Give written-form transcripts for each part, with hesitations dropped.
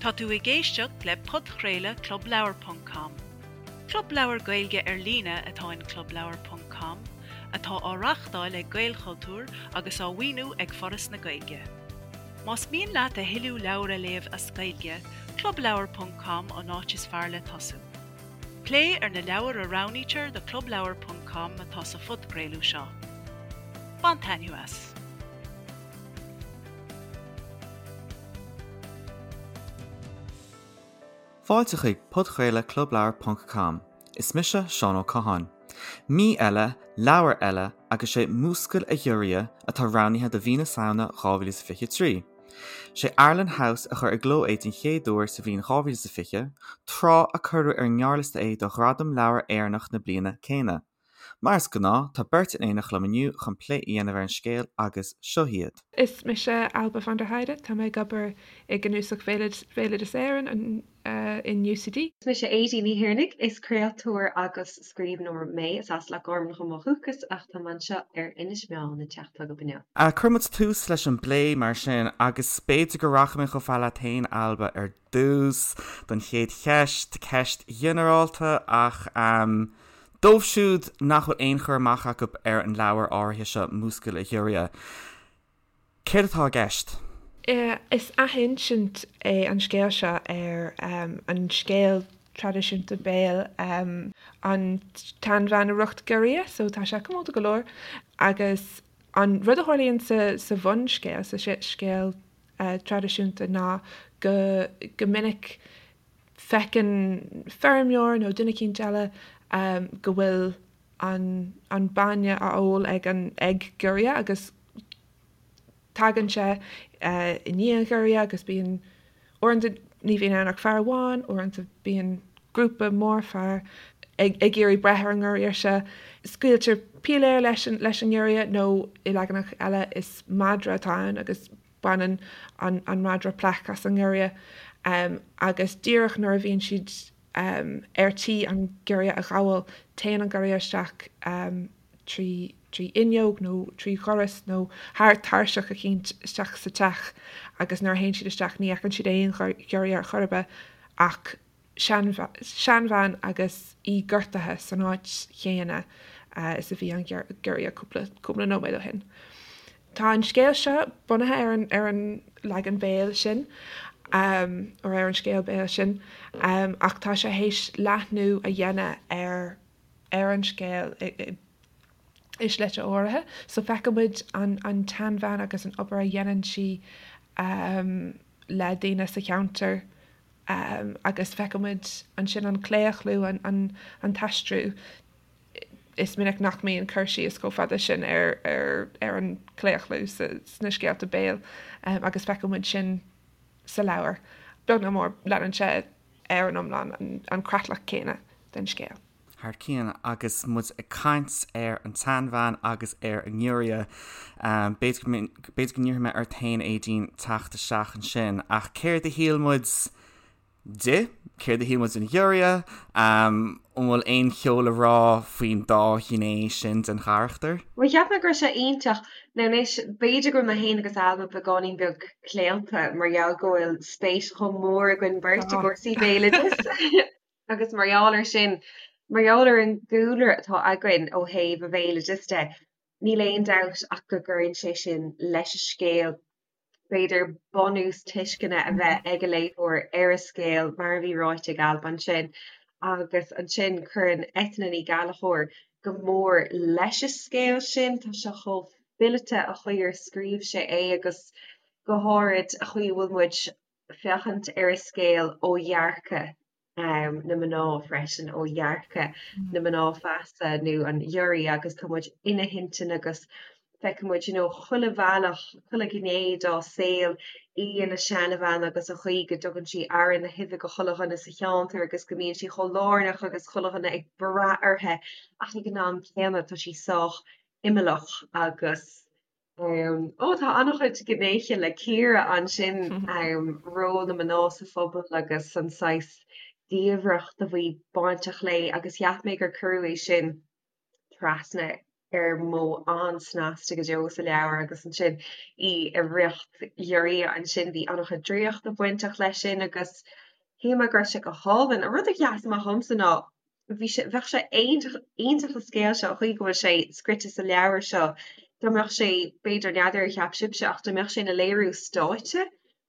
Tá tú ag éisteacht le podchraoladh Club Leabhar ponc com. Club leabhar Gaeilge ar líne atá in Club Leabhar ponc com, atá á reáchtáil ag Gaelchultúr agus á mhaoiniú ag Foras na Gaeilge. Más mian leat a thuilleadh leabhar a léamh as Gaeilge, Club Leabhar ponc com an áit is fearr le tosú. Plé ar na leabhair a roghnaítear do Club Leabhar ponc com atá sa phodchraoladh seo. Bain taitneamh as! Fáilte chuig podchraoladh Club Leabhar ponc com. Is mise Seán Ó Catháin. Mí eile, leabhar eile agus sé Múscail a Ghiorria atá roghnaithe do mhí na Samhna 2023. Sé Arlen House a chuir i gcló é den chéad uair sa bhliain 2020, tráth a cuireadh ar an ngearrliosta é do Ghradam Leabhar Éireannach na bliana céanna. Mar is gnáth, tá beirt in éineacht liom inniu chun plé a dhéanamh ar an scéal agus seo iad. Is mise Ailbhe van der Heide, tá mé ag obair i gCnuasach Bhéaloideas Éireann in UCD. Is mise Aedín Ní Thiarnaigh, is craoltóir agus scríbhneoir mé. Is as Loch Garman dhom ó dhúchas ach tá mé anseo ar Inis Meáin an teach atá agam inniu. Cuirfidh muid tús leis an bplé mar sin agus b'fhéidir go rachaidh mé chomh fada leat féin, Ailbhe, ar dtús don chéad cheist, ceist ghinearálta ach Dóibh siúd nach bhfuil aon chur amach acu ar an leabhar áirithe seo, Múscail a Ghiorria, céard atá i gceist? Is athinsint é an scéal seo ar an scéal traidisiúnta béil An tSeanbhean a Dhrucht Giorria, so tá sé comónta go leor. Agus an rud a tharlaíonn sa bhunscéal, sa scéal traidisiúnta ná go go minic Feiceann feirmeoir nó duine eicínt eile go bhfuil an bainne á ól ag an ag giorria agus tagann sé i ndiaidh an ghiorria agus bíonn, uaireanta ní bhíonn ann ach fear amháin, uaireanta bíonn grúpa mór fear ag iarraidh breith ar an ngiorria seo. Scaoiltear piléar leis an ngiorria nó i leaganacha eile is madra atá ann agus Baineann an madra plaic as an ngiorria agus díreach nuair a bhíonn siad ar tí an giorria a ghabháil, téann an giorria isteach trí fhuinneog nó trí dhoras nó thar tairseach eicínt isteach sa teach agus nuair a théann siad isteach ní fheiceann siad aon ghiorria ar chor ar bith ach seanbhean agus í gortaithe san áit chéanna is a bhí an giorria cúpla cúpla nóiméad ó shin. Tá an scéal seo bunaithe ar an ar an leagan béil sin or ar an scéal béil sin ach tá sé théis leathnú a dhéanamh ar ar an scéal i i slite áirithe. So feiceann muid an an tseanbhean agus an obair a dhéanann sí le daoine sa cheantar agus feiceann muid ansin an claochlú, an t-aistriú. Is minic nach mbíonn cur síos chomh fada sin ar an chlaochlú sna scéalta béil agus feiceann muid sin sa leabhar. Beag nó mór, leanann sé ar an iomlán an creatlach céanna den scéal. Thar cionn agus muid ag caint ar an tseanbhean agus ar an ngiorria, b'fhéidir go n-iarrfaidh mé ort féin, Aedín, teacht isteach ansin, ach céard a shíl muid di? Céard a shíl muid den ghiorria? An bhfuil aon cheo le rá faoin dá ghné sin den charachtar? Bhuel, cheap mé go raibh sé iontach. Now anois, b'fhéidir go bhfuil mé féin agus Ailbhe beagáinín beag claonta mar gheall go bhfuil spéis chomh mór againn beirt i gcúrsaí béaloidis. Agus mar gheall air sin, mar gheall ar an gcúlra atá againn ó thaobh an bhéaloidis de, níl aon dabht ach go gcuireann sé sin leis an scéal, b'fhéidir bunús tuisceana a bheith ag an léitheoir ar an scéal, mar a bhí ráite ag Ailbhe ansin. Agus ansin cuireann Eithne Ní Ghallchóir go mór leis an scéal sin, tá sé chomh fileata an chaoi ar scríobh sé é agus go háirid an chaoi a bhfuil muid féachaint ar an scéal ó dhearcadh na mná freisin, ó dhearcadh na mná feasa nó an ghiorria agus tá muid ina hintinn agus feiceann muid you know chuile bhealach, chuile ghné dá saol, í ina seanbhean agus an chaoi go dtugann sí aire na huibhe go chuile dhuine sa cheantar agus go mbíonn sí chomh lárnach agus chuile dhuine ag brath uirthi ach ag an am céanna tá sí sách imeallach agus Ó, tá an-chuid gnéithe le cíoradh ansin, ról na mná sa phobal agus an saghas diamhracht a bhí bainteach léi agus cheap mé gur cuireadh é sin trasna. Ar mhodh an-snasta go deo sa leabhar agus ansin í i riocht giorria ansin bhí an-chuid draíochta bainteach leis sin agus shíl mé go raibh sé go hálainn. An rud a sheas amach dhomsa ná bhí sé, bheadh sé iontach, iontach an scéal seo, an chaoi go bhfuil sé scrite sa leabhar seo, dá mbeadh sé, b'fhéidir, n'fheadar ar cheap sibhse ach dá mbeadh sé ina léiriú stáitse,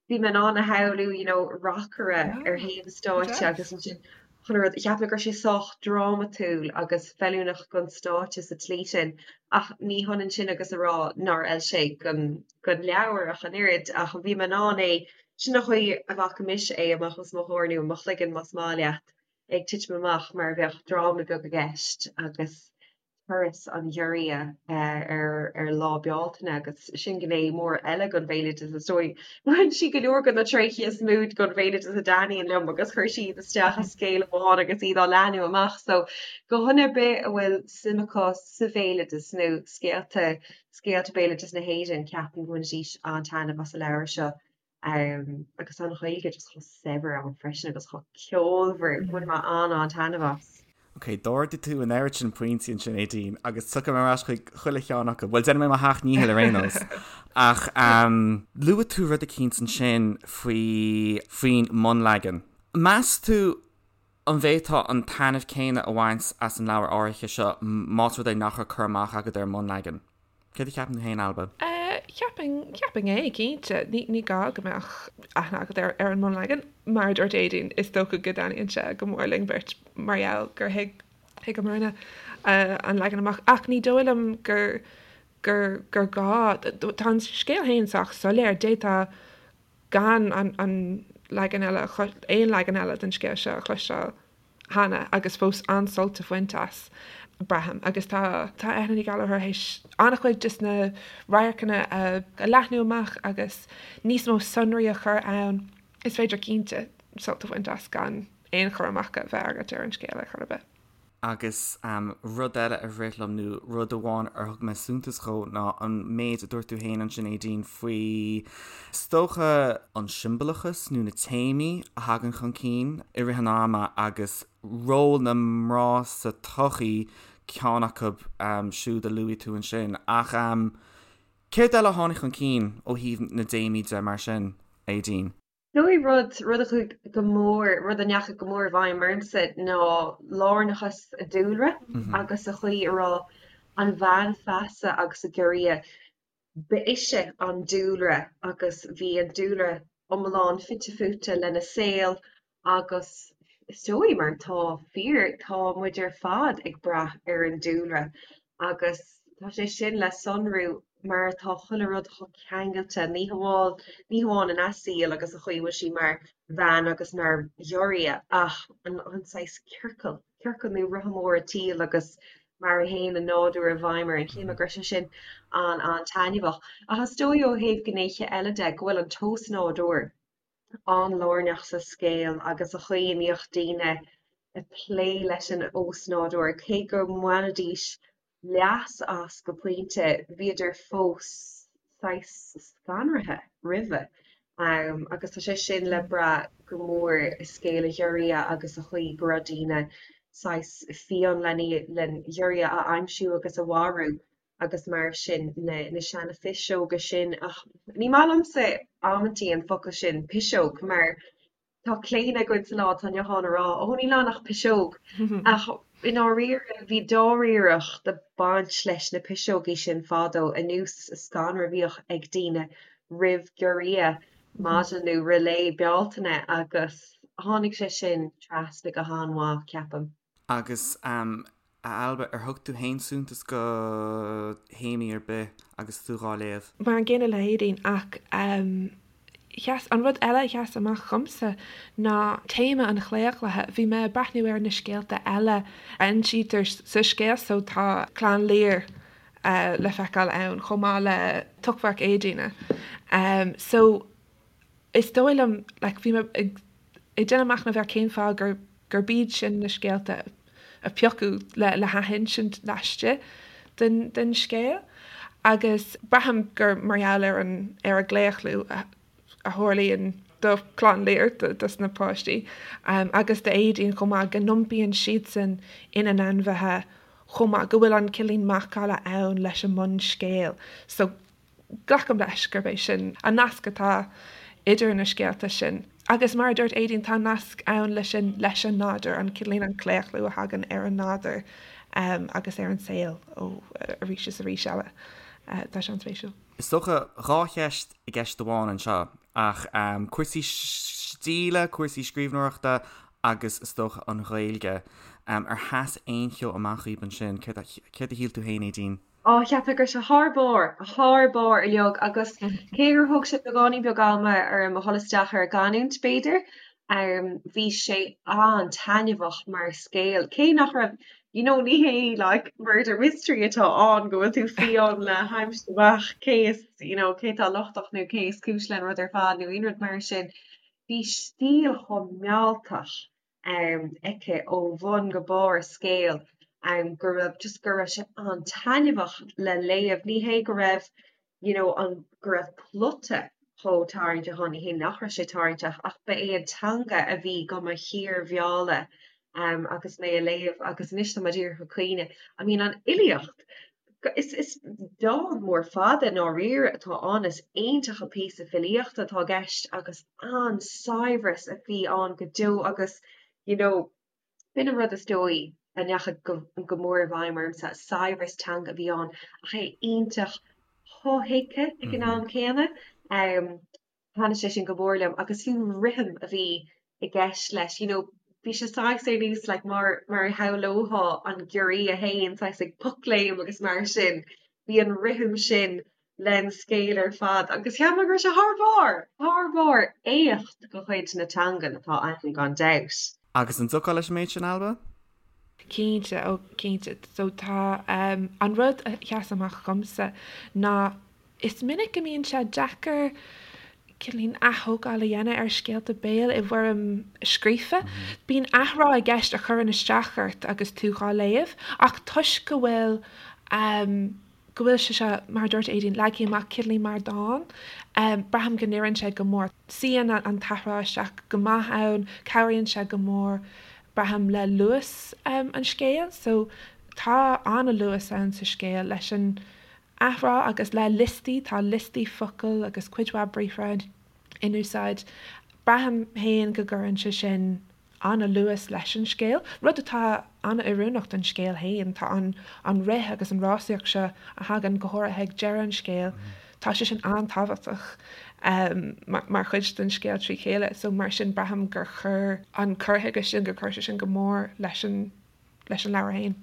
bhí mé in ann a shamhlú you know reacaire ar thaobh an stáitse agus ansin chuile rud, cheap mé go raibh sé sách drámatúil agus feiliúnach don stáitse sa tslí sin ach ní hionann sin agus a rá nár fheil sé don don leabhar ach an oiread ach bhí mé in ann é, sin an chaoi a bhfaca mise é amach os mo chomhair nó i mo chloigeann más maith leat, ag titim amach mar a bheadh dráma beag i gceist agus turas an ghiorria ar Lá Bealtaine agus sin gné mór eile den bhéaloideas is dóigh. Bhain sí go leor de na tréithe is mó den bhéaloideas a dtaitníonn liom agus chuir sí iad isteach i scéal amháin agus iad á leathnú amach. So do dhuine ar bith a bhfuil suim acu sa bhéaloideas nó scéalta scéalta béaloideas na hÉireann, ceapaim go mbainfidís an-taitneamh as an leabhar seo. Agus tá an Ghaeilge just chomh saibhir ann freisin agus chomh ceolmhar, bhain mé an-an-taitneamh as. Ok, d'ardaigh tú an oiread sin pointí ansin, Aedín, agus tiocfaidh mé ar ais chuig chuile cheann acu. Bhuel, déanfaidh mé mo sheacht ndícheall ar aon nós. Ach luaigh tú rud eicínt ansin faoi, faoin mbunleagan. Meas tú an bhféadfá an taitneamh céanna a bhaint as an leabhar áirithe seo más rud é nach raibh cur amach agat ar an mbunleagan? Céard a cheapann tú féin, Ailbhe? Cheapfainn, cheapfainn é, cinnte. Ní, ní gá go mbeadh aithne agat ar, ar an mbunleagan. Mar a dúirt Aedín, is dócha go dtaitníonn sé go mór linn beirt mar gheall gur thuig, thuigeamarna an leagan amach. Ach ní dóigh liom gur, gur, gur gá. Tá an scéal féin sách soiléir. D'fhéadfá gan an, an leagan eile, aon leagan eile den scéal seo a chloisteáil. cheana agus fós an-sult a bhaint as, braithim. Agus tá tá Eithne Ní Ghallchóir théis an-chuid de na radharcanna a leathnú amach agus níos mó sonraí a chur ann. Is féidir cinnte sult a bhaint as gan aon chur amach a bheith agat ar an scéal ar chor ar bith. Agus rud eile a rith liom, nó rud amháin ar thug mé suntas dhó, ná an méid a dúirt tú féin ansin, Aedín, faoi, is dócha, an siombalachas nó na téamaí a thagann chun cinn i rith an ama agus ról na mná sa tsochaí, ceann acu siúd a luaigh tú ansin. Ach céard eile a tháinig chun cinn ó thaobh na dtéamaí de mar sin, Aedín? Dóigh rud, rud a chuaigh go mór, rud a ndeachaigh go mór i bhfeidhm ormsa ná lárnachas an dúlra agus an chaoi a raibh an bhean feasa agus an giorria, ba ise an dúlra agus bhí an dúlra iomlán fite fuaite lena saol agus is dóigh mar atá fíor, tá muid ar fad ag brath ar an dúlra agus tá sé sin le sonrú mar atá chuile rud chomh ceangailte, ní hamháin, ní hamháin ina saol agus an chaoi a bhfuil sí mar bhean agus mar ghiorria ach an, an saghas ciorcal, ciorcal nó rotha mór an tsaoil agus mar a théann an nádúr i bhfeidhm orainn. Shíl mé go raibh sé sin an-an-taitneamhach. Ach is dóigh ó thaobh gnéithe eile de go bhfuil an t-osnádúr an-lárnach sa scéal agus an chaoi a mbíodh daoine ag plé leis an osnádúr, cé go mbainfidís leas as go pointe, bhíodar fós saghas scanraithe roimhe. Agus tá sé sin le brath go mór i scéal an ghiorria agus an chaoi go raibh daoine saghas fiáin len ghiorria a aimsiú agus a mharú. agus mar sin na na seana phiseoga sin ach ní maith liomsa amantaí an focal sin piseog mar tá claonadh againn sa lá atá inniu ann a rá ó níl ann ach piseog ach i ndáiríre bhí dáiríreacht ag baint leis na piseogaí sin fadó anuas an scanradh a bhíodh ag daoine roimh giorria maidin nó roimh Lá Bealtaine agus tháinig sé sin trasna go han-mhaith ceapaim. Agus a Ailbhe, ar thug tú fhéin suntas do théamaí ar bith agus tú dhá léamh? Mar an gcéanna le hAedín, ach sheas, an rud eile a sheas amach dhomsa ná téama an chlaochlaithe. Bhí mé ag breathnú ar na scéalta eile a insítear sa scéal so tá Clann Lir le feiceáil ann chomh maith le Tochmharc Éadaoine. So is dóigh liom, like, bhí mé ag déanamh machnaimh ar cén fáth gur gurb iad sin na scéalta a piocadh le le hathinsint laistigh den den scéal agus braithim gur mar gheall ar an ar an gclaochlú a a tharlaíonn do Chlann Lir, dos na páistí, agus d'Éadaoin chomh maith, go n-iompaíonn siadsan ina n-ainmhithe. chomh maith, go bhfuil an cineáilín macalla ann leis an mbunscéal. So, glacaim leis gurb é sin an nasc atá idir na scéalta sin. Agus mar a dúirt Aedín, tá nasc ann leis sin leis an nádúr, an cineáilín an claochlú a thagann ar an nádúr agus ar an saol ó arís is arís eile. Tá sé an-spéisiúil. Is dócha 2 cheist i gceist amháin anseo, ach cúrsaí stíle, cúrsaí scríbhneoireachta agus is dócha an Ghaeilge. Ar sheas aon cheo amach dhaoib ansin? Céard a shíl tú féin, Aedín? Á, cheap mé go raibh sé thar barr, thar barr uilig agus cé gur thóg sé beagáinín beag ama orm a dhul isteach ar an gcanúint, b'fhéidir, bhí sé an-taitneamhach mar scéal, cé nach raibh, you know, ní hé like murder mystery atá ann go bhfuil tú fiáin le haimsiú amach cé is, you know, cé atá lochtach nó cé is cúis leis an rud ar fad nó aon rud mar sin. Bhí stíl chomh mealltach aici ó bhun go barr an scéil go raibh just go raibh sé an-taitneamhach le léamh. Ní hé go raibh you know an go raibh plota chomh tarraingteach ann, ní hé nach raibh sé tarraingteach ach ba é an teanga a bhí do mo shíormhealladh agus mé a léamh agus anois tá mé díreach ag caoineadh. I mean an fhilíocht! Is is dán mór fada i ndáiríre atá ann, is iontach an píosa filíochta atá i gceist agus an-saibhreas a bhí ann go deo agus you know b'in an rud is dóigh a ndeachaigh go go mór i bhfeidhm ormsa, saibhreas teanga a bhí ann ach é iontach shothuigthe ag an am céanna. Thaitnigh sé sin go mór liom agus fiú an rithim a bhí i gceist leis, you know, bhí sé saghas ar nós like mar mar a shamhlófá an giorria fhéin saghas ag pocléim agus mar sin, bhí an rithim sin len scéal ar fad agus cheap mé go raibh sé thar barr, thar barr, éacht de chuid na teangan atá ann gan dabht. Agus an dtiocfá leis an méid sin, Ailbhe? Cinnte, ó cinnte. So tá, an rud a sheas amach dhomsa ná Is minic go mbíonn sé deacair cineáilín ath-thógáil a dhéanamh ar scéalta béil i bhfoirm scríofa. Bíonn athrá i gceist a chuireann isteach ort agus tú dhá léamh, ach toisc go bhfuil go bhfuil sé seo, mar a dúirt Aedín, leagtha amach cineáilín mar dán, braithim go n-oireann sé go mór. Suíonn an t-athrá isteach go maith ann, cabhraíonn sé go mór, braithim, le luas an scéil. So tá an-luas ann sa scéal leis an athrá agus le liostaí, tá liostaí focal agus cuid mhaith briathra in úsáid. Braithim féin go gcuireann sé sin an-luas leis an scéal, rud atá an-oiriúnach don scéal féin. Tá an an rith agus an rásaíocht seo a thagann go háirithe ag deireadh an scéil, tá sé sin an-tábhachtach mar chuid den scéal trí chéile. So mar sin braithim gur chuir an cur chuige sin, gur chuir sé sin go mór leis an leis an leabhar féin.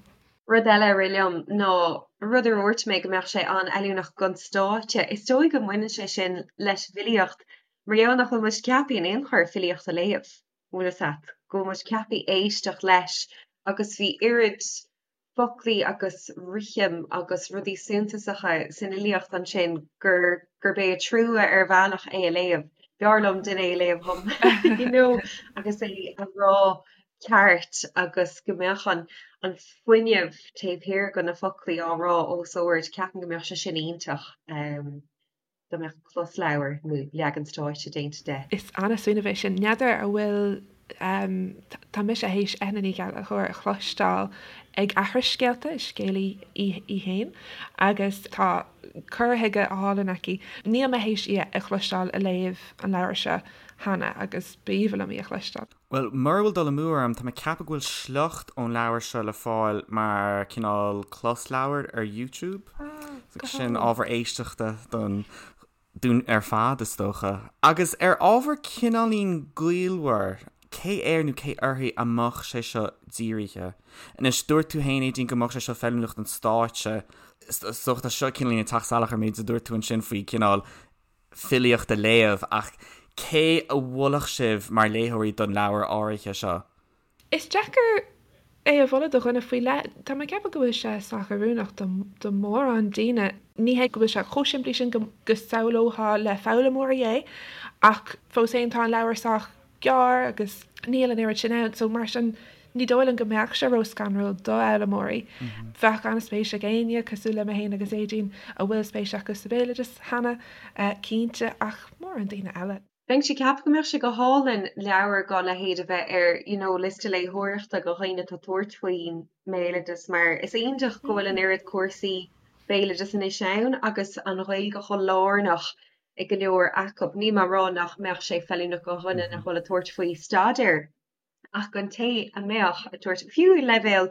Rud eile a rith liom ná rud a dhúirt mé go mbeadh sé an-fheiliúnach don stáitse. Is dóigh go mbaineann sé sin leis an bhfilíocht mar gheall nach bhfuil muid ceaptha in aon chor filíocht a léamh, bhfuil fhios a't, go bhfuil muid ceaptha éisteacht leis agus bhí oiread foclaí agus rithim agus rudaí suntasacha san fhilíocht ansin gur gurb é an trua ar bhealach é a léamh. B'fhearr liom duine é a léamh dhom you know agus é a rá ceart agus go mbeadh an an fuinneamh taobh thiar de na foclaí á rá os ard, ceapaim go mbeadh sé sin iontach dá mbeadh closleabhar nó leagan stáitse déanta de. Is an-smaoineamh é sin. N'fheadar an bhfuil, tá mise théis Eithne Ní Ghallchóir a chloisteáil ag aithris scéalta, is scéalaí í í féin, agus tá cur chuige álainn aici. Níl mé théis í a chloisteáil ag léamh an leabhair seo cheana agus b'aoibhinn liom í a chloisteáil. Bhuel, mura bhfuil dul amú orm, tá mé ag ceapadh go bhfuil sliocht ón leabhar seo le fáil mar cineál closleabhar ar YouTube. So sin ábhar éisteachta don dúinn ar fad, is dócha. Agus ar ábhar cineáilín gaolmhar, cé air nó cé uirthi a mbeadh sé seo dírithe? Anois, dúirt tú féin, Aedín, go mbeadh sé seo feiliúnach don stáitse. Is dócha tá seo cineáilín ag teacht salach ar an méid a dúirt tú ansin faoi cineál filíocht a léamh, ach cé a mholfadh sibh mar léitheoirí don leabhar áirithe seo? Is deacair é a mholadh do dhuine faoi leith. Tá mé ag ceapadh go bhfuil sé sách oiriúnach do mhórán daoine. Ní hé go bhfuil sé chomh simplí sin go samhlófá le foghlaimeoirí é, ach fós féin tá an leabhar sách gearr agus níl an oiread sin ann, so mar sin ní dóigh liom go mbeadh sé ró-scanrúil do fhoghlaimeoirí. Bheadh an-spéis ag éinne, cosúil le mé féin agus Aedín, a bhfuil spéis acu sa bhéaloideas cheana, cinnte, ach mórán daoine eile. Bheinnse ag ceapadh go mbeadh sé go hálainn leabhar dá leithéid a bheith ar you know liosta léitheoireachta do dhaoine atá ag tabhairt faoin mbéaloideas mar is iontach go bhfuil an oiread cúrsaí béaloideas anois ann agus an Ghaeilge chomh lárnach i go leor acu. Níl mé ag rá nach mbeadh sé feiliúnach do dhuine nach bhfuil ag tabhairt faoi staidéar ach don té a mbeadh ag tabhairt, fiú leibhéal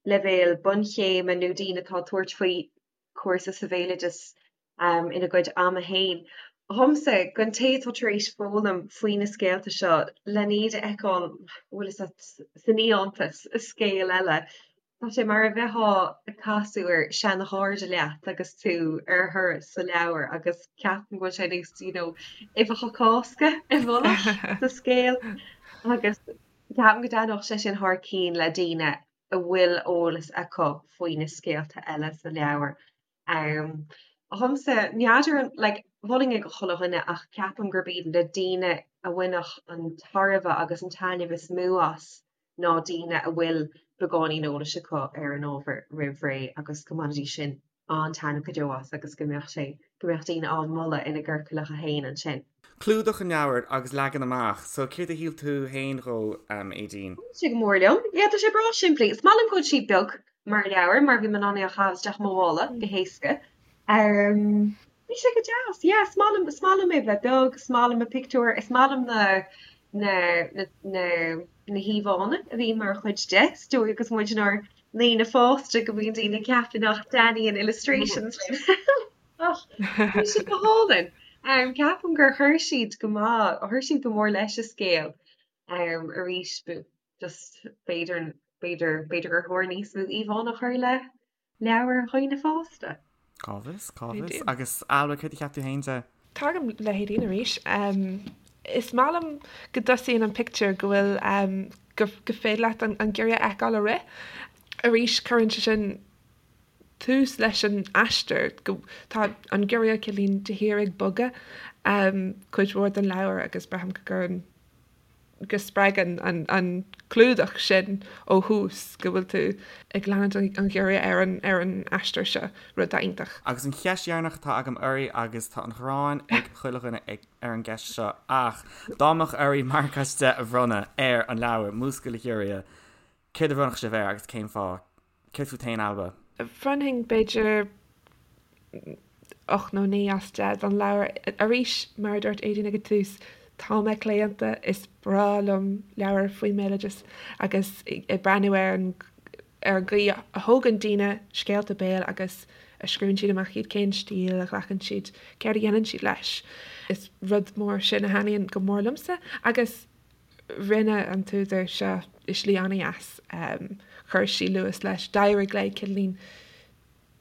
leibhéal bunchéime nó daoine atá ag tabhairt faoi cúrsa sa bhéaloideas ina gcuid ama fhéin. Dhomsa, don té atá tar éis foghlaim faoi na scéalta seo, len iad a fheiceáil, bhfuil fhios a't, san fhiántas, i scéal eile, tá sé mar a bheifeá ag casadh ar seana-chairde leat agus tú ar thuras sa leabhar agus ceapaim go bhfuil sé nós, you know, uibheacha Cásca i bhfolach sa scéal agus ceapaim go dtaitneodh sé sin thar cinn le daoine a bhfuil eolas acu faoi na scéalta eile sa leabhar. Dhomsa, n'fheadar an, like, mholfainn é do chuile dhuine ach ceapaim gurb iad na daoine a bhainfeadh an tairbhe agus an taitneamh is mó as ná daoine a bhfuil beagáinín eolais acu ar an ábhar roimh ré agus go mbainfidís sin an-taitneamh go deo as agus go mbeadh sé, go mbeadh daoine á mholadh ina gciorcalacha féin ansin. Clúdach an leabhair agus leagan amach, so céard a shíl tú féin dhó, Aedín? Thaitin sé go mór liom. Yeah, tá sé breá simplí. Is maith liom go bhfuil sé beag mar leabhar mar bhí mé in ann é a chaitheamh isteach i mo mhála go héasca. Bhí sé go deas. Yeah, is maith liom, is maith liom é bheith beag, is maith liom na pictiúir, is maith liom na, na, na, na, na híomhánna a bhíonn mar chuid de. Is dóigh agus muid inár ndaoine fásta go mbíonn daoine ag ceapadh nach dtaitníonn illustrations linn. Ach bhí siad go hálainn. Ceapaim gur chuir siad go maith, chuir siad go mór leis an scéal. Arís, just b'fhéidir, b'fhéidir, b'fhéidir gur chóir níos mó íomhánna a chur le leabhair dhaoine fásta. Cá bhfios, cá bhfios. Agus Ailbhe, céard a cheap tú féin de? Tagaim le hAedín arís. Is maith liom go dtosaíonn an pictiúr go bhfuil, go féidir leat an giorria a fheiceáil ag rith. Arís, cuireann sé sin tús leis an aistear, go, tá an giorria cineáilín de shíor ag bogadh cuid mhór den leabhar agus braithim go gcuireann, go spreagann an clúdach sin ó thús go bhfuil tú ag leanúint an ghiorria ar an ar an aistear seo, rud atá iontach. Agus an cheist dheireanach atá agam oraibh, agus tá an ghráin ag chuile dhuine ar an gceist seo, ach dá mbeadh oraibh marc as 10 a bhronnadh ar an leabhar, Múscail a Ghiorria, céard a bhronnfadh sibh air agus cén fáth? Céard fút féin, Ailbhe? Bhronnfainn b'fhéidir 8 nó 9 as 10 don leabhar. Arís, mar a dúirt Aedín ag an tús, tá mé claonta, is breá liom leabhair faoin mbéaloideas agus ag breathnú ar an ar an gcaoi a thógann daoine scéalta béil agus a scríobhann siad amach iad, cén stíl a ghlacann siad, céard a dhéanann siad leis. Is rud mór sin a thaitníonn go mór liomsa agus Rinne an t-údar seo i slí an-dheas. Chuir sí luas leis. D'éirigh léi cineáilín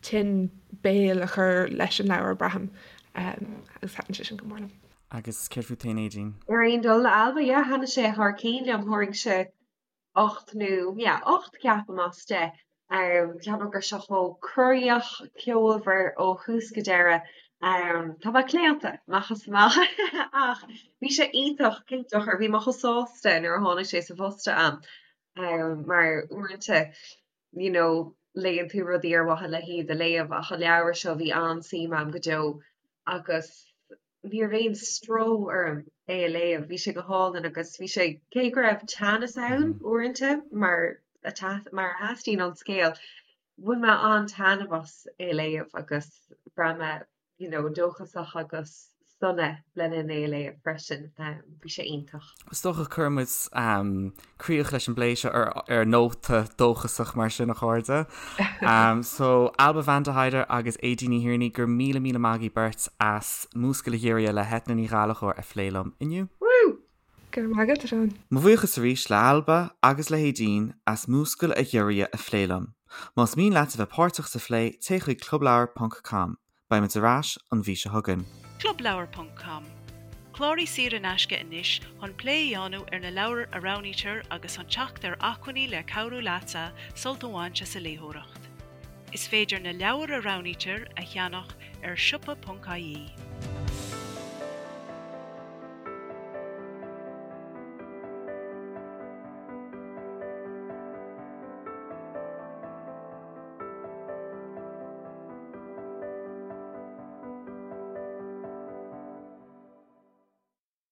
tuin béil a chur leis an leabhar, braithim, agus thaitin sé sin go mór liom. Agus céard fút féin, Aedín? Ar aon dul le Ailbhe, yeah, thaitnigh sé thar cinn liom. Thabharfainnse 8 nó, yeah, 8 ceapaim as 10. Ceapaim go raibh sé chomh corraitheach, ceolmhar ó thús go deireadh. Tá mé claonta, amach is amach, ach bhí sé iontach, cén dochar, bhí mé chomh sásta nuair a tháinig sé sa phost a'm, mar uaireanta, you know, léann tú rudaí ar mhaithe le hiad a léamh ach an leabhar seo bhí an-suim a'm go deo agus ní raibh aon stró orm é a léamh, bhí sé go hálainn agus bhí sé, cé go raibh teannas ann uaireanta mar a mar a theastaíonn ón scéal, bhain mé an-taitneamh as é a léamh agus bhraith mé you know dóchasach agus sona le linn é a léamh freisin, bhí sé iontach. Is dócha cuirfidh muid críoch leis an bplé seo ar nóta dóchasach mar sin, a chairde. So, Ailbhe van der Heide agus Aedín Ní Thiarnaigh, go raibh míle míle maith agaibh beirt as Múscail a Ghiorria le hEithne Ní Ghallchóir a phlé liom inniu. Woo! Go raibh maith agat, a Sheáin. Mo bhuíochas arís le Ailbhe agus le hAedín as Múscail a Ghiorria a phlé liom. Más mian leat a bheith páirteach sa phlé, téigh chuig clubleabhar ponc com. Beidh muid ar ais an mhí seo chugainn. Clubleabhar ponc com, Cláraigh saor in aisce anois chun plé a dhéanamh ar na leabhair a roghnaítear agus chun teacht ar acmhainní le cabhrú leatsa sult a bhaint as an léitheoireacht. Is féidir na leabhair a roghnaítear a cheannach ar siopa.ie.